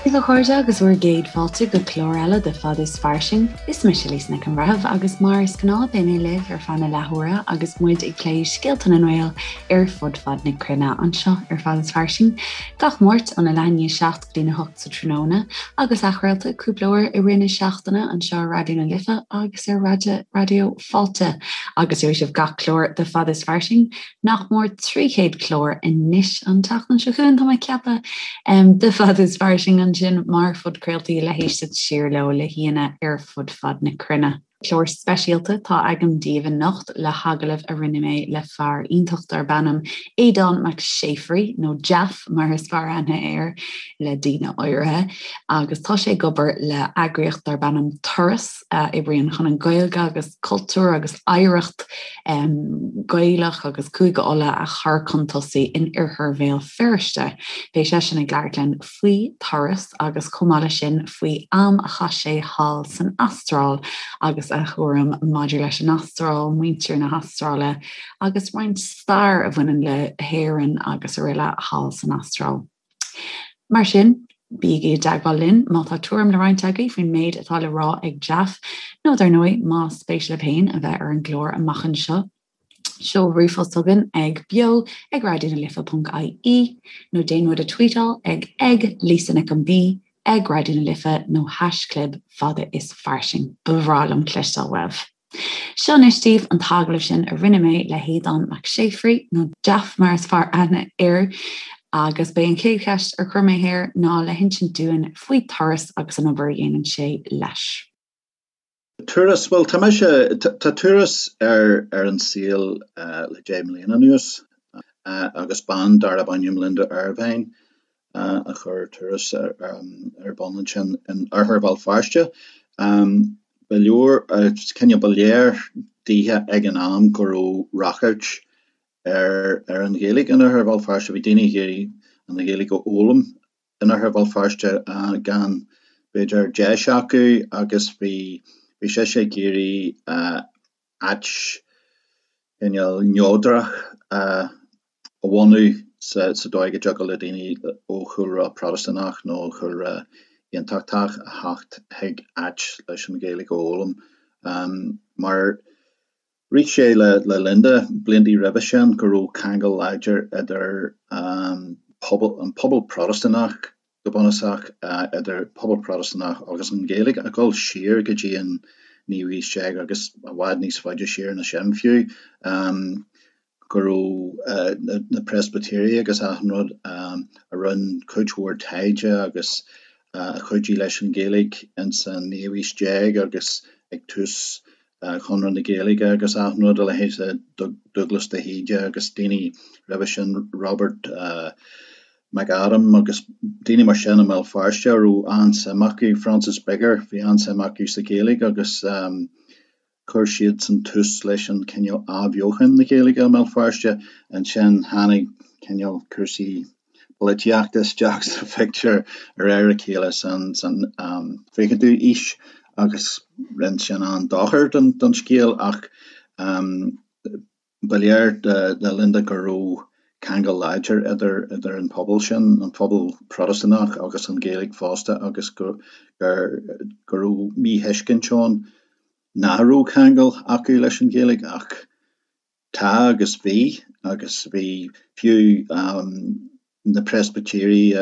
Dia daoibh a chairde agus bhur gcéad fáilte go clár eile de Fad is Fairsing. Is mise Lisa Nic an Bhreithimh agus mar is gnáth beidh mé libh ar feadh na leathuaire agus muid ag plé scéalta na nGael ar fud fad na cruinne anseo ar Fad is Fairsing gach Máirt óna leath i ndiaidh 7 go dtína 8 sa tráthnóna agus athchraolta cúpla uair i rith na seachtaine anseo ar Raidió na Life agus ar Raidió Fáilte agus gheobhaidh sibh gach clár de Fad is Fairsing nach mór 300 clár anois an tseachtain seo chugainn, tá mé ag ceapadh, de Fad is Fairsing ansin mar phodchraoltaí le héisteacht siar leo le haíonna ar fud fad na cruinne. Clár speisialta atá agam daoibh anocht le hagallamh a rinne mé le fear iontach darb ainm Aodán Mac Séafraidh, nó Jaff mar is fearr aithne air le daoine áirithe, agus tá sé ag obair le eagraíocht darb ainm Turas, a oibríonn chun an Ghaeilge agus cultúr agus oidhreacht Ghaelach agus Cúige Uladh a chur chun tosaigh in oirthear Bhéal Feirste. Beidh seisean ag labhairt linn faoi Turas agus chomh maith leis sin faoi am a chaith sé thall san Astráil agus a thuairim maidir leis an Astráil, muintir na hAstráile agus roinnt stair a bhaineann le hÉirinn agus araile thall san Astráil. Mar sin, bígí i dteagmháil linn má tá tuairim le roinnt agaibh faoin méid atá le rá ag Jaff, nó dar ndóigh, más spéis libh féin a bheith ar an gclár amach anseo, seol ríomhphost chugainn ag beo ag raidionalife.ie nó déan muid a tweetáil ag ag Lisa Nic an B ag Raidió na Life nó haischlib fada is fairsing. Ba bhreá liom cloisteáil uaibh. Seo anois daoibh an t-agallamh sin a rinne mé le hAodán Mac Séafraidh, nó Jaff mar is fearr aithne air, agus b'é an chéad cheist ar chuir mé air ná le hinsint dúinn faoi Turas agus an obair a dhéanann sé leis. Turas, bhuel tá mise, tá Turas ar ar an saol le 10 mbliana anuas agus bean darb ainm Linda Ervine a chuir Turas ar bun ansin in oirthear Bhéal Feirste. Ba leor, cineál, ba léir daoithe ag an am go raibh ráchairt ar ar an Ghaeilge in oirthear Bhéal Feirste. Bhí daoine ag iarraidh an Ghaeilge a fhoghlaim in oirthear Bhéal Feirste gan, b'fhéidir, deis acu agus bhí bhí sise ag iarraidh áit cineál neodrach a bhunú sa dóigh go dtiocfadh le daoine ó chúlra Protastúnach nó ó chúlra Aontachtach a theacht chuig áit leis an Ghaeilge a fhoghlaim. Mar rith sé le Linda blianta roimhe sin go raibh ceangal láidir idir an pobal Protastúnach go bunúsach, idir pobal Protastúnach agus an Ghaeilge, ag dul siar go dtí an naoú haois déag agus i bhfad níos faide siar ná sin fiú, go raibh na Preispitéirigh agus achan rud a rinne cuid mhór taighde agus a chuidigh leis an Ghaeilge ins an naoú haois déag agus ag tús Chonradh na Gaeilge agus achan rud, a leithéid de Dubhghlas de hÍde agus daoine roimhe sin, Robert McAdam agus daoine mar sin i mBéal Feirste a raibh an-suim acu, Francis Bigger, bhí an-suim acu sa Ghaeilge agus chuir siadsan tús leis an cineál athbheochan na Gaeilge i mBéal Feirste. Ansin tháinig cineál cúrsaí polaitíochta isteach sa phictiúr de réir a chéile san 20ú aois agus rinne sin an-dochar don scéal ach ba léir do Linda go raibh ceangal láidir idir idir an pobal sin, an pobal Protastúnach agus an Ghaeilge fosta agus go go raibh míthuiscint ann nach raibh ceangal acu leis an Ghaeilge ach Tá agus bhí, agus bhí fiú na Preispitéirigh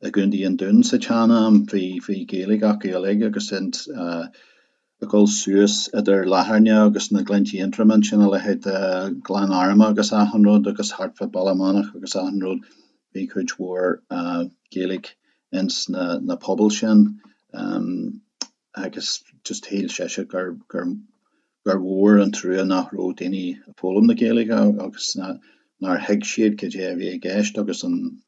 i gContae an Dúin sa tsean-am, bhí, bhí Gaeilge acu uilig agus ag dul suas idir Latharna agus na Gleanntaí Aontroma ansin, a leithéid de Ghleann Arma agus achan rud agus thart fá Baile Meanach agus achan rud, bhí cuid mhór Gaeilge ins na, na pobail sin agus just shíl sise gur, gur gur mhór an trua nach raibh daoine ag foghlaim na Gaeilge agus nár thuig siad cad é a bhí i gceist agus an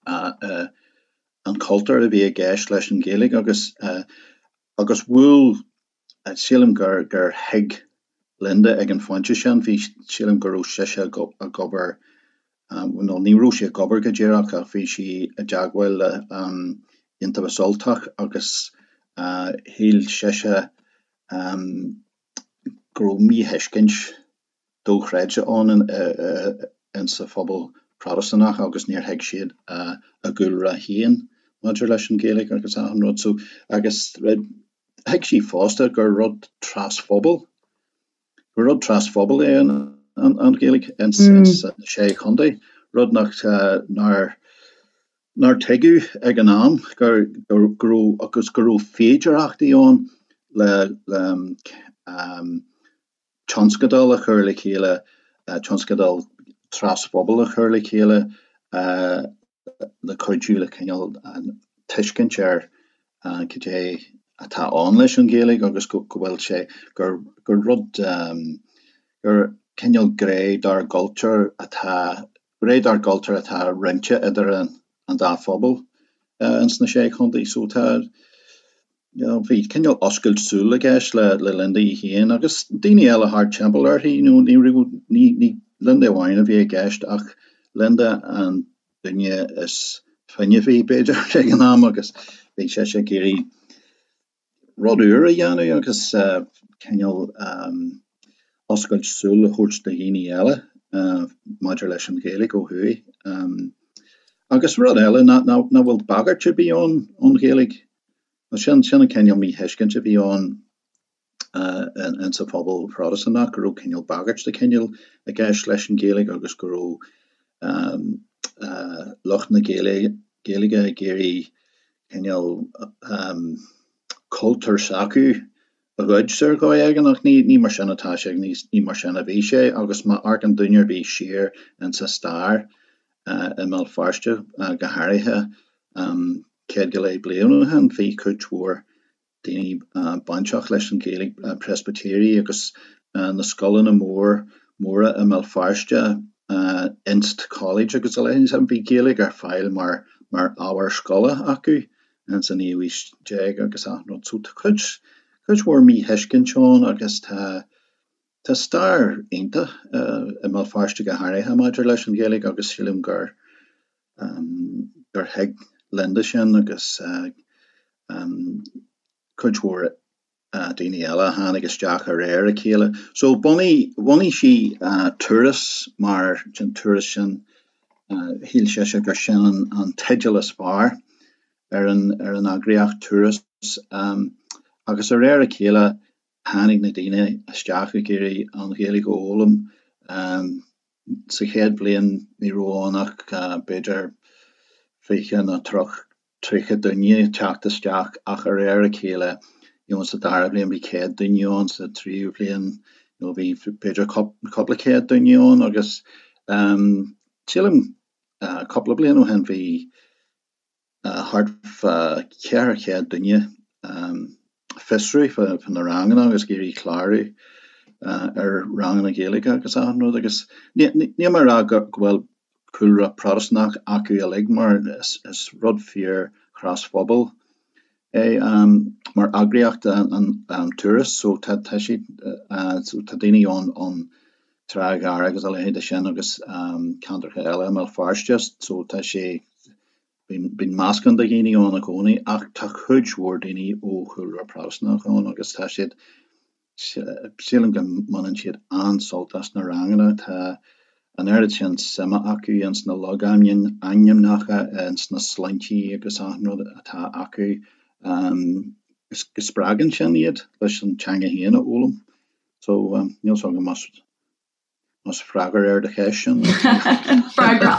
an cultúr a bhí i gceist leis an Ghaeilge agus agus bhuail sílim gur gur thuig Linda ag an phointe sin, bhí sílim go raibh sise ag obair nó ní raibh sí ag obair go díreach ach bhí sí i dteagmháil le Iontaobhas Ultach agus shíl sise go raibh míthuiscint dochreidte ann insa phobal Protastúnach agus níor thuig siad a gcúlra féin. maidir leis an Ghaeilge agus achan rud so agus thuig sí fosta gur rud trasphobail, gur rud trasphobail é an an Ghaeilge ins na Sé Chontae, rud nach nár nár tuigeadh ag an am gur go raibh agus go raibh féidearthachtaí ann le le tionscadal a chur le chéile, tionscadal trasphobail a chur le chéile le cuidiú le cineál tuiscint ar cad é atá ann leis an Ghaeilge agus go bhfuil sé, gur rud, gur cineál gné dár gcultúr atá, gné dár gcultúr atá roinnte idir an dá phobal ins na Sé Chontae. So tá, you know, bhí cineál oscailt súl i gceist le le Linda í féin agus daoine eile thart timpeall uirthi, you know, ní raibh, ní, ní Linda amháin a bhí i gceist ach Linda an duine is fuinneamhaí b'fhéidir ag an am agus bhí sise ag iarraidh rud úr a dhéanamh agus cineál oscailt súl a thabhairt do dhaoine eile maidir leis an Ghaeilge ó thuaidh. Agus rud eile, nach bhfuil bagairt ar bith ann ón Ghaeilge. Sin sin an cineál míthuiscint a bhí ann insa phobal Phrotastúnach, go raibh cineál bagairt de chineál i gceist leis an Ghaeilge agus go raibh lucht na Gaeilge ag iarraidh cineál cultúr s'acu a ghoid ar dhóigh éigin ach ní mar sin atá sé, ní mar sin a bhí sé agus má amharcann duine ar bith siar insa stair i mBéal Feirste go háirithe 100 go leith bliain ó shin bhí cuid mhór daoine bainteach leis an Ghaeilge, Preispitéirigh agus na scoileanna mór móra i mBéal Feirste, Inst College agus a leithéid, bhí Gaeilge ar fáil mar mar ábhar scoile acu ins an naoú haois déag agus achan rud. So tá cuid cuid mhór míthuiscint ann agus tá tá stair iontach i mBéal Feirste go háirithe maidir leis an Ghaeilge agus sílim gur gur thuig Linda sin agus cuid mhór daoine eile a tháinig isteach de réir a chéile. So bhunaigh, bhunaigh sí Turas mar sin Turas sin, shíl sise gur sin an teideal is fearr ar an, ar an eagraíocht Turas agus de réir a chéile tháinig na daoine isteach ag iarraidh an Ghaeilge a fhoghlaim. Sa chéad bhliain ní raibh ann ach b'fhéidir 20 nó 30 duine ag teacht isteach ach de réir a chéile you know sa dara bliain bhí 100 duine ann, sa tríú bliain you know bhí b'fhéidir cúpla céad duine ann agus sílim cúpla bliain ó shin bhí thart fá 400 duine fiosrú fá na ranganna agus ag iarraidh clárú ar ranganna Gaeilge agus achan rud agus níl mé ag rá go bhfuil cúlra Protastúnach acu uilig mar is rud fíor thrasphobail é mar eagraíocht an Turas so tá siad so tá daoine ann ón Trá Ghearr agus a leithéid de sin agus ceantracha eile i mBéal Feirste so tá sé Bíonn meascán de dhaoine ann i gcónaí ach tá cuid mhór daoine ó chúlra Protastúnach ann agus tá siad, sílim go mbaineann siad an-sult as na ranganna. Tá an oiread sin suime acu ins na logainmneacha, ins na sloinntí agus achan rud atá acu go spreagann sin iad leis an teanga féin a fhoghlaim. So, níl 's agam más Más freagra ar do cheist sin. Freagra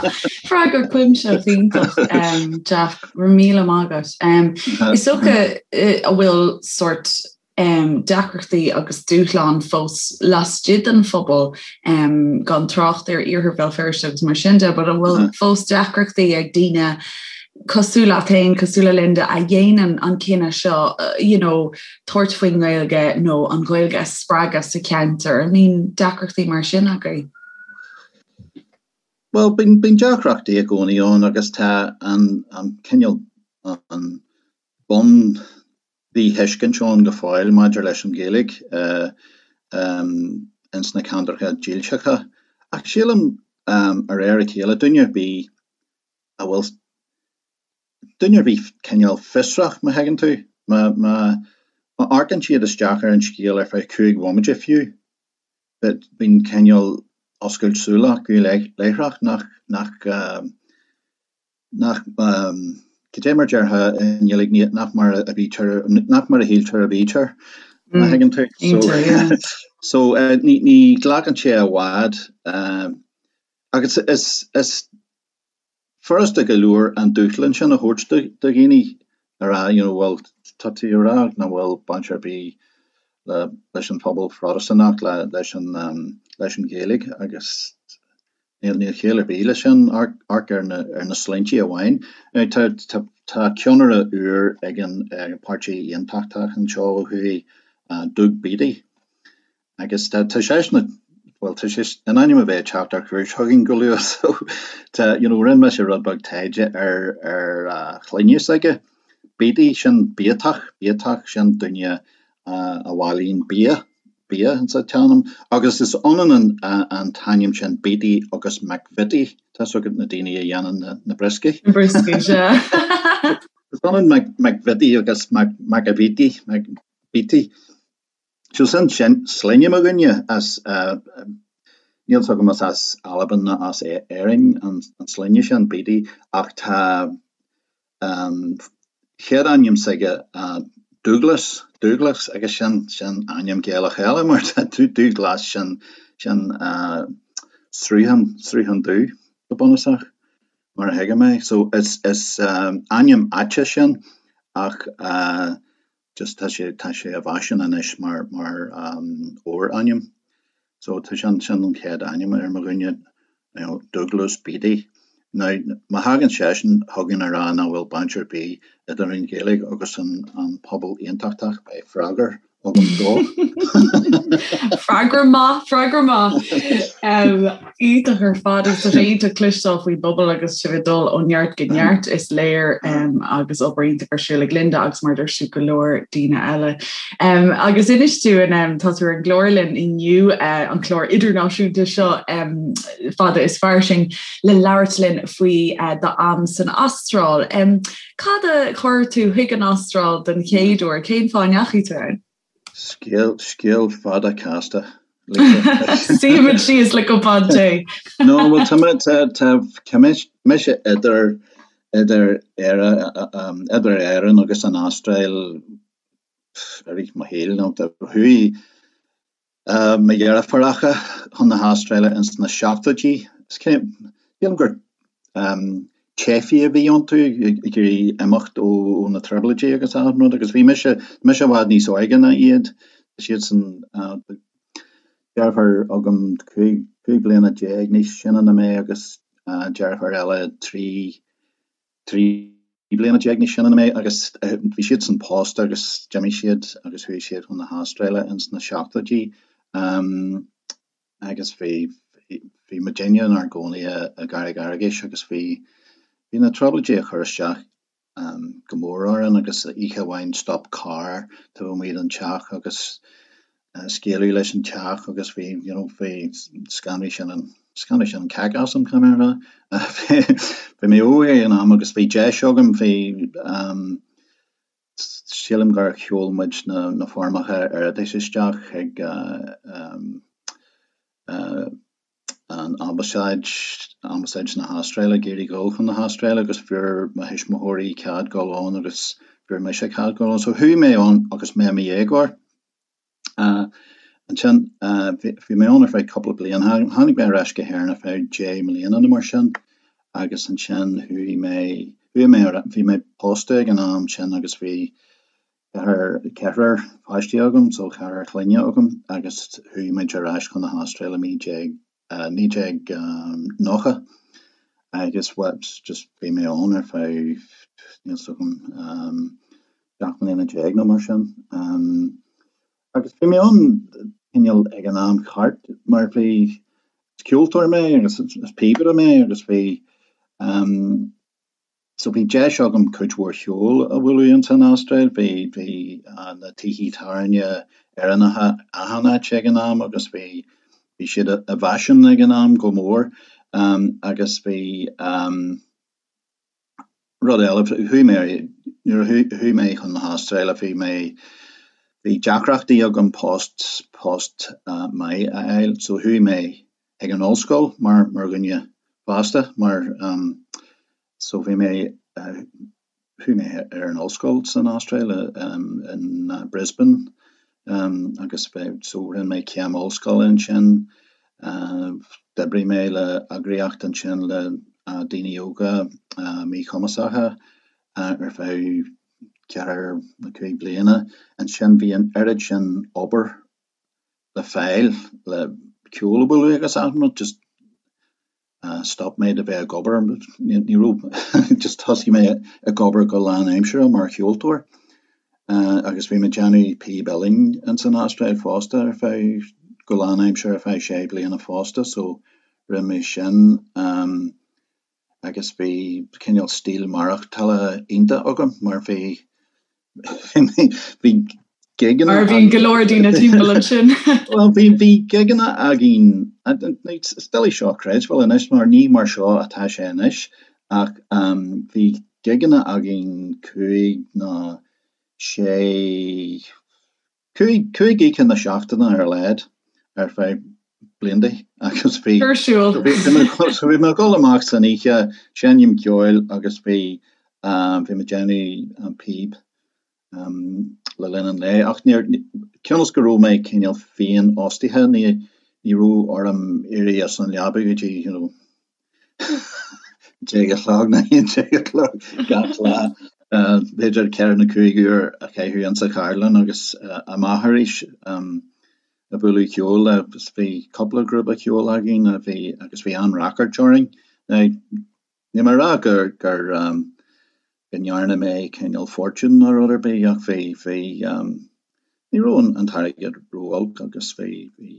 freagra cuimsitheach iontach Jack, go raibh míle maith agat. Is dócha an bhfuil sórt deacrachtaí agus dúshlán fós laistigh den phobal gan trácht ar iarthar Bhéal Feirste agus mar sin de, but an bhfuil fós deacrachtaí ag daoine cosúil leat féin, cosúil le Linda, a dhéanann an cinneadh seo, you know, tabhairt faoin nGaeilge nó an Ghaeilge a spreagadh sa cheantar? An mbíonn deacrachtaí mar sin agaibh? Bhuel, bíonn, bíonn deacrachtaí i gcónaí ann agus tá an, an cineál, an bun mhíthuiscint ann go fóill maidir leis an Ghaeilge ins na ceantracha dílseacha. Ach sílim, de réir a chéile, duine ar bith a bhfuil duine ar bith cineál fiosrach, má thuigeann tú, má, má, má amharcann siad isteach ar an scéal ar feadh chúig bhomaite fiú, bíonn cineál oscailt súl acu láithreach nach, nach, nach. Cad é mar a déarfá i nGaeilge nach mar a bhítear, nach mar a shíltear a bhítear, má thuigeann tú. So, so ní, ní ghlacann sé i bhfad agus is, is furasta go leor an dúshlán sin a thabhairt do dhaoine a rá you know bhuel tá tú ag rá nach bhfuil baint ar bith le leis an phobal Phrotastúnach le leis an leis an Ghaeilge agus níl níl ciall ar bith leis sin amharc ar na ar na sloinnte amháin. Now tá tá tá ceannaire úr ag an Páirtí Aontachtach anseo ó thuaidh, Doug Beattie. Agus tá seisean, bhuel, tá sé in ainm a bheith ag teacht ar cuairt chugainn go luath so tá, you know, rinne mise rud beag taighde ar, ar a shloinne s'aige. Beattie, sin biatach, biatach, sin duine a bhailíonn bia, bia insa tsean-am. Agus is ionann an, an t-ainm sin Beattie agus McVitie, tá's agat na daoine a dhéanann na, na brioscaí. Na brioscaí, sea. Is ionann McVitie agus McAveety, McBeattie. So sin sloinne mo dhuine as, níl 's agam más as Albain nó as Éirinn an sloinne sin, Beattie, ach tá an chéad ainm s'aige Dúglas, Dúglas, agus sin, sin ainm Gaelach eile mar tá Dúghlas, sin, sin sruthán, sruthán dubh go bunúsach, mar a thuigim é. So is, is ainm áite sin ach just tá sé, tá sé i bhfaisean anois mar, mar fhorainm. So tá sin, sin an chéad ainm ar mo dhuine, you know, Douglas Beattie. Now, má thagann seisean chugainn a rá nach bhfuil baint ar bith idir an Ghaeilge agus an, an pobal aontachtach, beidh freagra agam dó. Freagra maith, freagra maith. Iontach ar fad agus tá sé iontach cloisteáil faoin bpobal agus sibh ag dul ó neart go neart is léir agus obair iontach ar siúl ag Linda agus mar a dúirt tú go leor daoine eile. Agus inis dúinn tá tú ar an gclár linn inniu an clár idirnáisiúnta seo fada is fairsing le labhairt linn faoi d'am san Astráil. Cad a chuir tú chuig an Astráil den chéad uair? Cén fáth a ndeachaigh tú ann? Scéal, scéal fada casta, Lisa. Suífimid síos le cupán tae. No, bhuel, tá mé, tá, tá, tá mise idir, idir Éire, idir Éirinn agus an Astráil i rith mo shaoil, nó chuaigh Mo dheirfiúracha chun na hAstráile ins na seachtóidí. Sílim gur teifigh a bhí iontu ag iarraidh imeacht ó na trioblóidí agus achan rud agus bhí mise, mise i bhfad níos óige ná iad. Tá siadsan, deirfiúr agam 15 bliana níos sine ná mé agus deirfiúr eile 13 bliana níos sine ná mé agus bhí siadsan pósta agus d'imigh siad agus chuaigh siad chun na hAstráile ins na seachtóidí agus bhí bhí muidinne inár gcónaí i gCarraig Fhearghais agus bhí bhí na trioblóidí ag cur isteach go mór orainn agus oíche amháin stop carr taobh amuigh den teach agus scaoileadh leis an teach agus bhí, you know, bhí, scanraigh sin an, scanraigh sin an cac asam, caithfidh mé a rá. Bhí mé óg ag an am agus bhí deis agam, bhí, sílim gur sheol muid na, na foirmeacha iarratais isteach chuig an Ambasáid, Ambasáid na hAstráile, ag iarraidh dhul chun na hAstráile agus fuair mo thuismitheoirí cead dul ann agus fuair mise cead dul ann. So chuaigh mé ann agus mé i mo dhéagóir. Ansin bhí mé ann ar feadh cúpla bliain. Tháinig mé ar ais go hÉirinn ar feadh 10 mbliana nó mar sin agus ansin chuaigh mé, chuaigh mé ar, bhí mé pósta ag an am sin agus bhí ceathrar, ceathrar páistí agam, so ceathrar clainne agam agus chuaigh muid ar ais chun na hAstráile 19, 1990 agus bhuel just bhí mé ann ar feadh, níl 's agam, 17 mbliana nó mar sin. Agus bhí mé ann cineál ag an am ceart mar bhí, is ceoltóir mé agus is píobaire mé agus bhí, So bhí deis agam cuid mhór cheoil a bhualadh ins an Astráil. Bhí, bhí na tithe tábhairne Éireannacha achan áit ag an am agus bhí, bhí siad i bhfaisean ag an am go mór. Agus bhí rud eile, chuaigh mé, nuair a chuaigh mé chun na hAstráile bhí mé, bhí deacrachtaí agam post, post maith a fháil. So chuaigh mé ag an ollscoil mar, mar dhuine fásta, mar so bhí mé. Chuaigh mé ar an ollscoil san Astráil in Brisbane agus so rinne mé céim ollscoile ansin. D'oibrigh mé le eagraíocht ansin le daoine óga míchumasacha ar feadh ceathair nó 5 bliana. Ansin bhí an oiread sin obair le fáil le ceol a bhualadh agus achan rud just stop mé de bheith ag obair, ní raibh, just thosaigh mé ag obair go lánaimseartha mar cheoltóir agus bhí mé ag déanamh píb uilleann ins an Astráil fosta ar feadh, go lánaimseartha ar feadh sé bliana fosta so rinne mé sin agus bhí cineál stíl maireachtála iontach agam mar bhí Bhí gigeanna. Mar a bhíonn go leor daoine timpeall ansin. Bhuel, bhí, bhí gigeanna againn, is doiligh seo a chreidbheáil anois mar ní mar seo atá sé anois, ach bhí gigeanna againn cúig nó sé, 5 oíche na seachtaine ar a laghad ar feadh blianta agus bhí Ar siúl. so bhí mé ag dul amach san oíche, seinm ceoil agus bhí bhí mé ag déanamh píb le linn an lae ach níor, cionn is go raibh mé cineál féinfhostaithe ní ní raibh orm éirí as an leaba go dtí you know 10 a chlog nó 11 a chlog gach lá, b'fhéidir 4 nó 5 uair a chaitheamh insa cheardlann agus amach arís ag bualadh ceoil agus bhí cúpla grúpa ceoil againn a bhí agus bhí an-ráchairt orainn. Now, níl mé ag rá gur gur go ndearna mé cineál fortune nó rud ar bith ach bhí bhí ní raibh an t-airgead ró-olc agus bhí bhí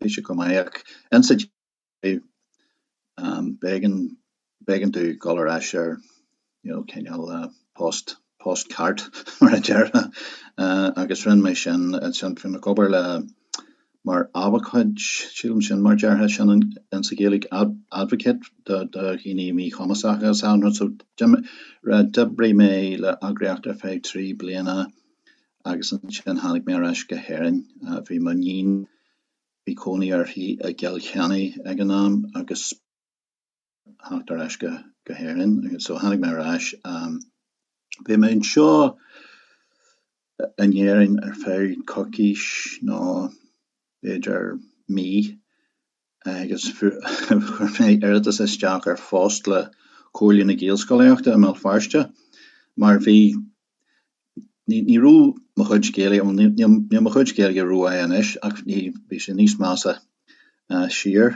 bhí sé go maith ach insa B'éigean, b'éigean domh dul ar ais ar, you know, cineál post, post ceart mar a déarfá agus rinne mé sin ansin. Bhí mé ag obair le, mar abhcóid, sílim sin mar a déarfá sin insa Ghaeilge, advocate do dhaoine míchumasacha is ea. So d'oibrigh mé le eagraíocht ar feadh 3 bliana agus ansin tháinig mé ar ais go hÉirinn. Bhí m'iníon Bhí cónaí uirthi i gCill Chainnigh ag an am agus theacht ar ais go hÉirinn. So tháinig mé ar ais. Bhí mé anseo in Éirinn ar feadh coicís nó b'fhéidir mí agus chuir mé iarratas isteach ar phost le Comhairle na Gaelscolaíochta i mBéal Feirste mar bhí Ní raibh mo chuid Gaeilge, bhuel níl mo chuid Gaeilge rómhaith anois ach bhí sé níos measa siar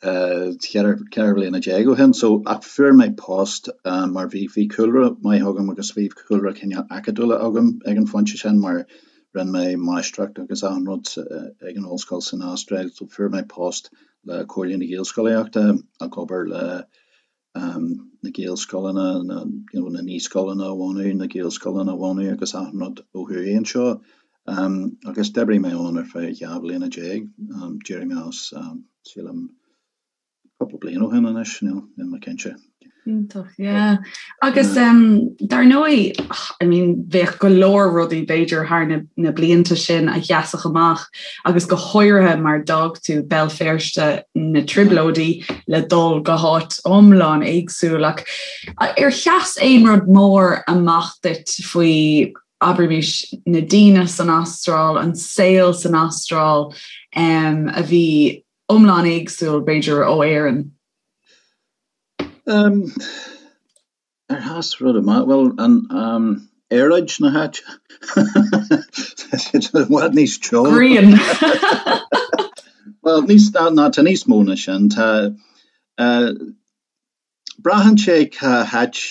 14 bhliana ó shin. So, ach fuair mé post mar bhí bhí cúlra maith agam agus bhí cúlra cineál acadúla agam ag an phointe sin mar rinne mé máistreacht agus achan rud ag an ollscoil san Astráil. So fuair mé post le Comhairle na Gaelscolaíochta ag obair le na Gaelscoileanna, na you know na naíscoileanna a bhunú, na Gaelscoileanna a bhunú agus achan rud ó thuaidh anseo. Agus d'oibrigh mé ann ar feadh 12 bhliana. D'éirigh mé as, sílim, cúpla bliain ó shin anois, níl mé cinnte. Iontach, yeah. Agus dar ndóigh, I mean, bheadh go leor rudaí b'fhéidir thar na, na blianta sin a sheasfadh amach agus go háirithe mar d'fhág tú Béal Feirste na Trioblóidí le dul go háit iomlán éagsúil ach ar sheas aon rud mór amach duit faoi abraimis na daoine san Astráil, an saol san Astráil um, a bhí iomlán éagsúil b'fhéidir ó Éirinn? Um, Ar sheas rud amach? Bhuel, an aeráid na háite. Tá sé i bhfad níos teo. Grian! Bhuel, níos, ná, tá níos mó ná sin. Tá, braitheann sé cá háit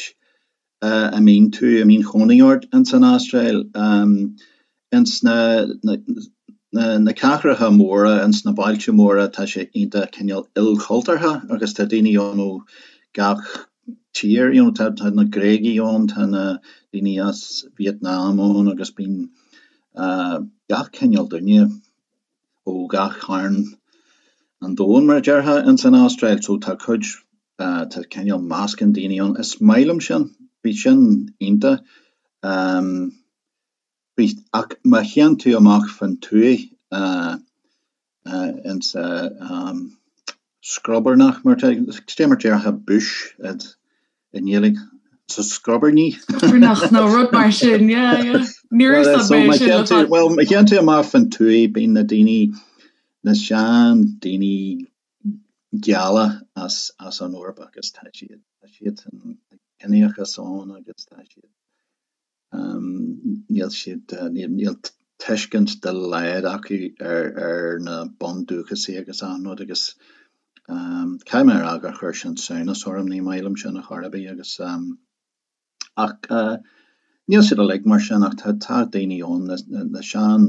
a mbíonn tú, a mbíonn cónaí ort ins an Astráil. Ins na, na cathracha móra, ins na bailte móra, tá sé iontach cineál ilchultúrtha agus tá daoine ann ó gach tír, you know, tá, tá na Gréagaigh ann, tá na daoine as Vietnam ann agus bíonn gach cineál duine ó gach cearn an domhain, mar a déarfá, ins an Astráil. So tá cuid, tá cineál meascán daoine ann. Is maith liom sin, bhí sin iontach. Bhí, ach má théann tú amach fán tuaith insa scrobarnach, mar, cad é mar déarfá bush i nGaeilge? Sa scrobarnaigh. Scrobarnach nó rud mar sin, yeah, yeah. Níor úsáid mé é sin le fada. Bhuel, má théann tú amach fan tuaith, bíonn na daoine, na sean daoine geala as as an Eoraip agus tá siad, tá siadsan, tá ciníochas ann agus tá siad, Níl siad, níl tuiscint dá laghad acu ar na bundúchasaigh agus achan rud agus caithfidh mé a rá gur chuir sin samhnas orm, ní maith liom sin ar chor ar bith agus ach níl siad uilig mar sin ach tá tá daoine ann, na sean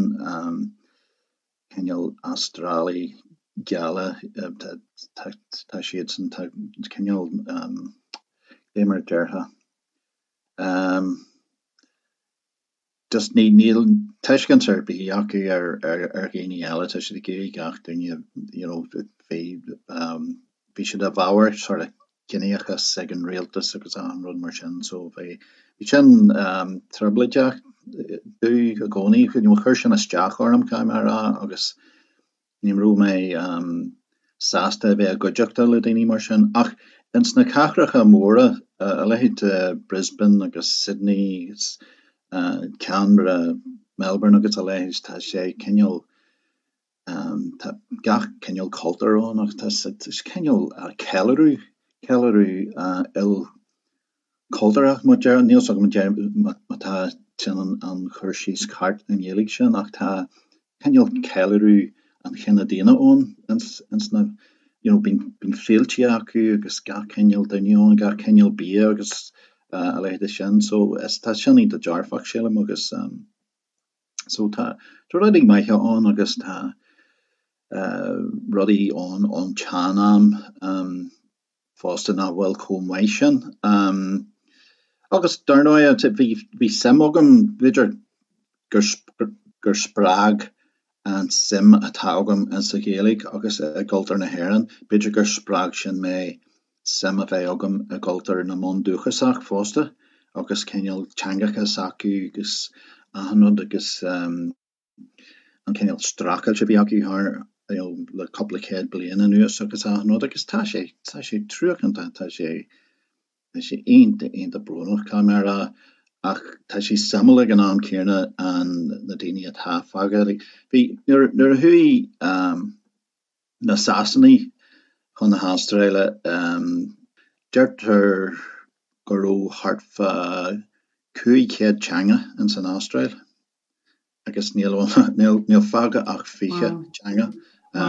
cineál Astrálaigh geala, tá tá siadsan, tá cineál cé mar a déarfá. Just ní, níl tuiscint ar bith acu ar, ar, ar dhaoine eile, tá siad ag iarraidh gach duine, you know, bhí, bhí siad i bhfabhar sort of ciníochas ag an rialtas agus achan rud mar sin, so bhí, bhí sin trioblóideach domh i gcónaí, you know, chuir sin isteach orm, caithfidh mé a rá, agus Ní raibh mé sásta a bheith i gcuideachta le daoine mar sin. Ach ins na cathracha móra, a leithéid de Brisbane agus Sydney agus Canberra, Melbourne agus a leithéid, tá sé cineál, tá gach cineál cultúr ann agus tá cineál ceiliúradh, ceiliúradh il. cultúrtha, má deir, níl 's agam má tá sin an cur síos ceart i nGaeilge sin ach tá cineál ceiliúradh an chine daonna ann ins na, you know, bíonn, bíonn féilte acu agus gach cineál duine ann, gach cineál bia agus a leithéid de sin so is, tá sin iontach dearfach sílim agus so tá, tá rudaí maithe ann agus tá rudaí ann ón tsean-am. fosta nach bhfuil chomh maith sin. Agus dar ndóigh, bhí, bhí suim agam, b'fhéidir gur, gur spreag an suim atá agam insa Ghaeilge agus i gcultúr na hÉireann, b'fhéidir gur spreag sin mé suim a bheith agam i gcultúr na mbundúchasach fosta agus cineál teangacha s'acu agus achan rud agus. an cineál streachailt a bhí acu thar you know le cúpla céad bliain anuas agus achan rud agus tá sé, tá sé truacánta, tá sé, tá sé iontach, iontach brónach caithfidh mé a rá ach tá sé suimiúil ag an am céanna an, na daoine atá fágtha. Like bhí, nuair, nuair a chuaigh um na Sasanaigh chun na hAstráile um deirtear go raibh thart fá 500 teanga ins an Astráil. agus níl níl fágtha ach 20 teanga.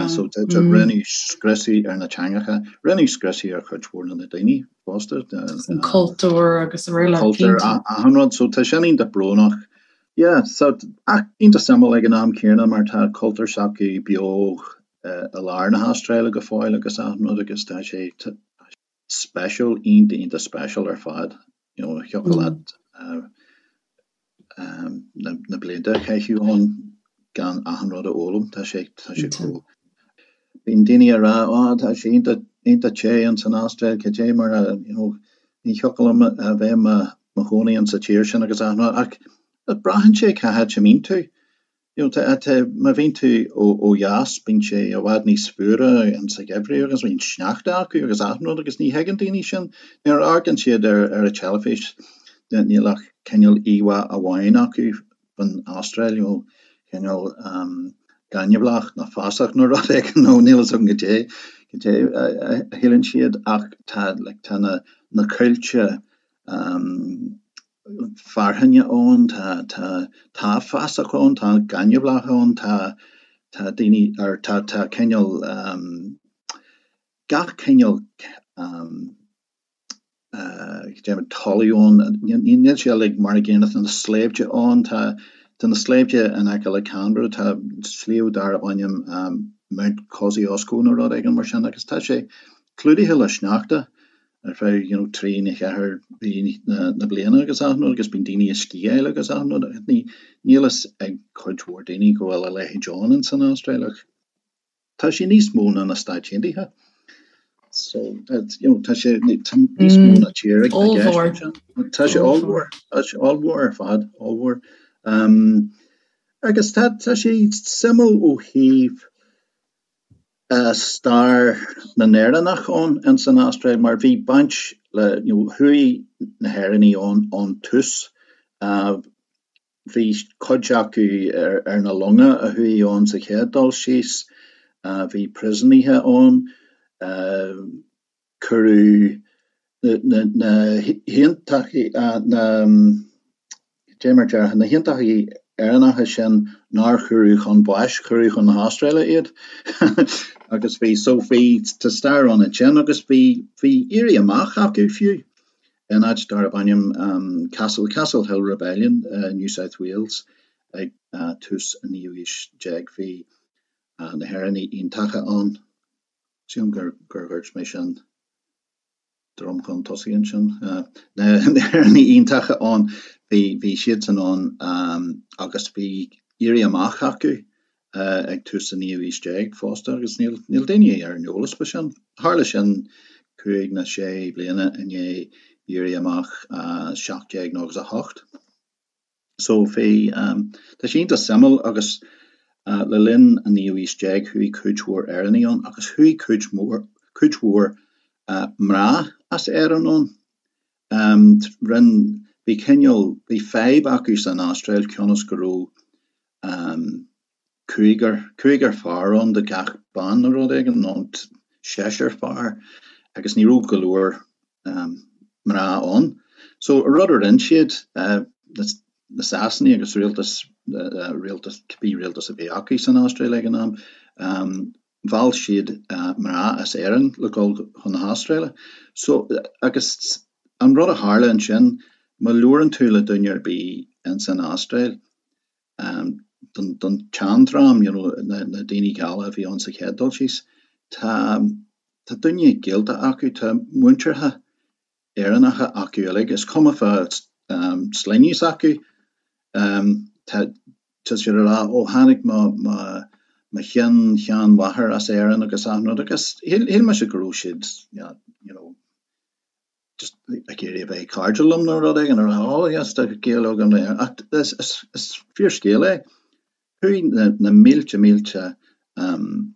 So rinneadh scriosadh ar na teangacha, rinneadh scriosadh ar chuid mhór de na daoine fosta. An cultúr agus araile. Cultúr, achan rud. So tá sin iontach brónach. Yeah, so ach iontach suimiúil ag an am céanna mar tá cultúr s'acu beo i lár na hAstráile go fóill agus achan rud agus tá sé speisiúil, iontach iontach speisiúil ar fad. You know, thiocfadh leat na blianta a chaitheamh ann gan achan rud a fhoghlaim. Tá sé, tá sé chomh. Bíonn daoine ag rá, oh, tá sé iontach, iontach te ins an Astráil, cad é mar a, you know, ní thiocfadh liom a bheith i mo chónaí insa tír sin agus achan rud. Ach braitheann sé cá háit a mbíonn tú. You know, tá, tá, má bhíonn tú ó, ó dheas, bíonn sé i bhfad níos fuaire insa gheimhreadh agus bíonn sneachta acu agus achan rud agus ní thuigeann daoine sin. Nuair a amharcann siad ar, ar an teilifís, níl ach cineál íomhá amháin acu faoin Astráil, you know, cineál um, gaineamhlach nó fásach nó rud éigin nó níl fhios agam goidé, goidé a, a, a shíleann siad ach tá, like, tá na, na coillte um, fearthainne ann, tá, tá, tá fásach ann, tá gaineamhlach ann, tá, tá daoine, or tá, tá cineál, gach cineál déarfainn talamh ann, níl sé uilig mar an gcéanna, tá na sléibhte ann, tá, tá na sléibhte in aice le Canberra, tá sliabh darb ainm Mount Kosciuszko nó rud éigin mar sin agus tá sé clúdaithe le sneachta. ar feadh you know 3 nó 4 mhí na bliana agus achan rud agus bíonn daoine ag sciáil agus achan rud agus ní níl fhios ag cuid mhór daoine go bhfuil a leithéid ann ins an Astráil ach tá sé níos mó ná na Stáit Aontaithe so you know tá sé tá níos mó ná tír i gceist ansin. Tá sé ollmhór tá sé ollmhór ar fad ollmhór um, agus tá tá sé suimiúil ó thaobh stair na nÉireannach ann ins an Astráil mar bhí baint Le, you know, chuaigh na hÉireannaigh ann ón tús. Bhí cuid acu ar na longa a chuaigh ann sa chéad dul síos. Bhí príosúnaithe ann. Cuireadh na haontachtaithe, na, cad é mar déarfá, na haontachtaithe Éireannacha sin nár cuireadh chun báis, cuireadh chun na hAstráile iad. Agus bhí, so bhí, tá stair ann ansin agus bhí, bhí éirí amach acu fiú in áit darb ainm Castle, Castle Hill Rebellion, New South Wales ag tús an naoú haois déag. Bhí na hÉireannaigh Aontacha ann. Sílim gur dhúirt mé sin droim chun tosaigh ansin. Na hÉireannaigh Aontacha ann, bhí siadsan ann agus bhí éirí amach acu ag tús an naoú haois déag fosta agus níl daoine ar an eolas faoi sin. Tharla sin cúig nó sé bliana i ndiaidh éirí amach 1798. So bhí, tá sé iontach suimiúil agus le linn an naoú haois déag chuaigh cuid mhór Éireannaigh ann agus chuaigh cuid mhór, cuid mhór mná as Éirinn ann. Rinn, bhí cineál, bhí fadhb acu san Astráil cionn is go raibh cúigear, cúigear fear ann do gach bean nó rud éigin, nó seisear fear, agus ní raibh go leor mná ann. So, an rud a rinne siad, na Sasanaigh agus rialtas, rialtas, cibé rialtas a bhí acu san Astráil ag an am, mheall siad mná as Éirinn le dul chun na hAstráile. So, agus an rud a tharla ansin, má labhrann tú le duine ar bith ins an Astráil, don tseandream, you know, na daoine geala a bhí ann sa chéad dul síos, tá, tá duine gaolta acu, tá muinteartha Éireannacha acu uilig, is cuma fá sloinne s'acu, tá, tá siad ag rá, ó tháinig mo, mo, mo shean-sheanmháthair as Éirinn agus achan rud agus shíl, shíl mise go raibh siad, you know, just ag iarraidh a bheith cairdiúil liom nó rud éigin, a rá oh yes tá gaol agam le Éirinn ach is, is, is fíorscéal é. Chuaigh na, na mílte mílte um,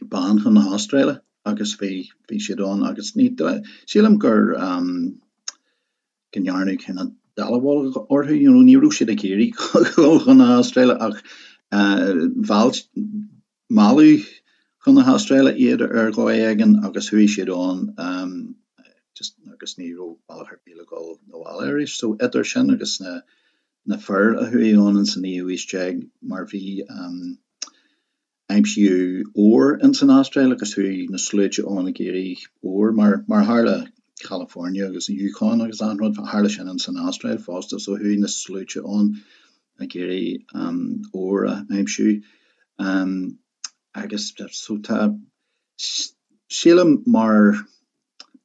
ban chun na hAstráile agus bhí, bhí siad ann agus ní, sílim gur um, go ndearnadh cineál dallamullóg orthu, you know, ní raibh siad ag iarraidh dul chun na hAstráile ach uh, mheall, Mealladh chun na hAstráile iad ar dhóigh éigin agus chuaigh siad ann just agus ní raibh bealach ar bith le dhul 'na bhaile arís. So idir sin agus na na fir a chuaigh ann ins an naoú haois déag mar bhí aimsíodh ór ins an Astráil agus chuaigh na sluaite ann ag iarraidh ór mar mar tharla California agus an Yukon agus achan rud tharla sin ins an Astráil fosta so chuaigh na sluaite ann ag iarraidh ór a aimsiú agus so tá, sílim mar,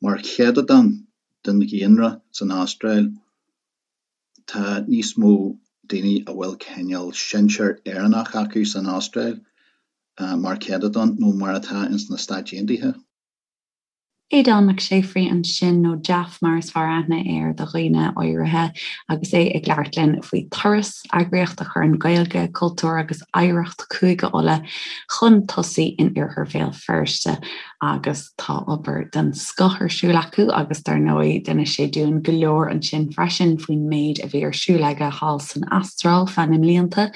mar chéatadán den dhaonra san Astráil tá níos mó daoine a bhfuil cineál sinsear Éireannach acu san Astráil mar chéatadán nó mar atá ins na Stáit Aontaithe. Aodán Mac Séafraidh ansin, nó Jaff mar is fearr aithne air do dhaoine áirithe, agus é ag labhairt linn faoi Turas, eagraíocht a chuireann Gaeilge, cultúr agus oidhreacht Chúige Uladh chun tosaigh in iarthar Bhéal Feirste. Agus tá obair den scoth ar siúl acu agus dar ndóigh d'inis sé dúinn go leor ansin freisin faoin méid a bhí ar siúl aige thall san Astráil feadh na mblianta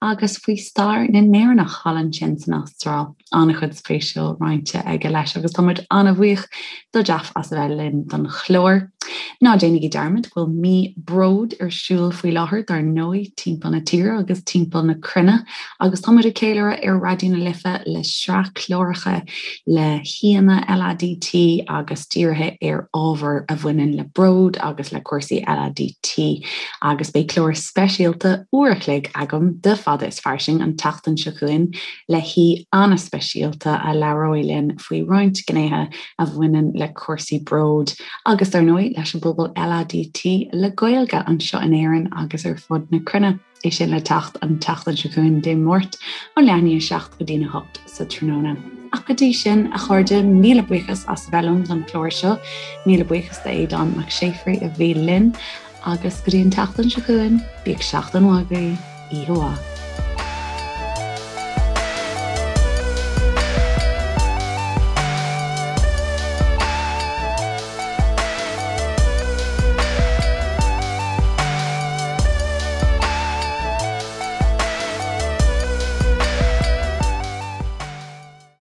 agus faoi stair na nÉireannach thall ansin san Astráil. an-chuid spéisiúil roinnte aige leis agus tá muid an-bhuíoch do Jaff as a bheith linn don chlár. Ná déanaigí dearmad go bhfuil mí bród ar siúl faoi láthair dar ndóigh timpeall na tíre agus timpeall na cruinne agus tá muid ag ceiliúradh ar Raidió na Life le sraith cláracha le haíonna LADT agus dírithe ar ábhair a bhaineann le bród agus le cúrsaí LADT agus beidh clár speisialta uair a chloig agam de Fada is Fairsing an tseachtain seo chugainn le haoi an-speisialta a labhróidh linn faoi roinnt gnéithe a bhaineann le cúrsaí bróid agus, dar ndóigh, leis an bpobal LADT le Gaeilge anseo in Éirinn agus ar fud na cruinne. É sin le teacht an tseachtain seo chugainn, Dé Máirt, ó leath i ndiaidh a 7 go dtí'n 8 sa tráthnóna. Ach go dtí sin, a chairde, míle buíochas as a bheith liom don chlár seo. Míle buíochas d'Aodán Mac Séafraidh a bhí linn agus go dtí an tseachtain seo chugainn, bíodh seachtain mhaith agaibh, oíche mhaith.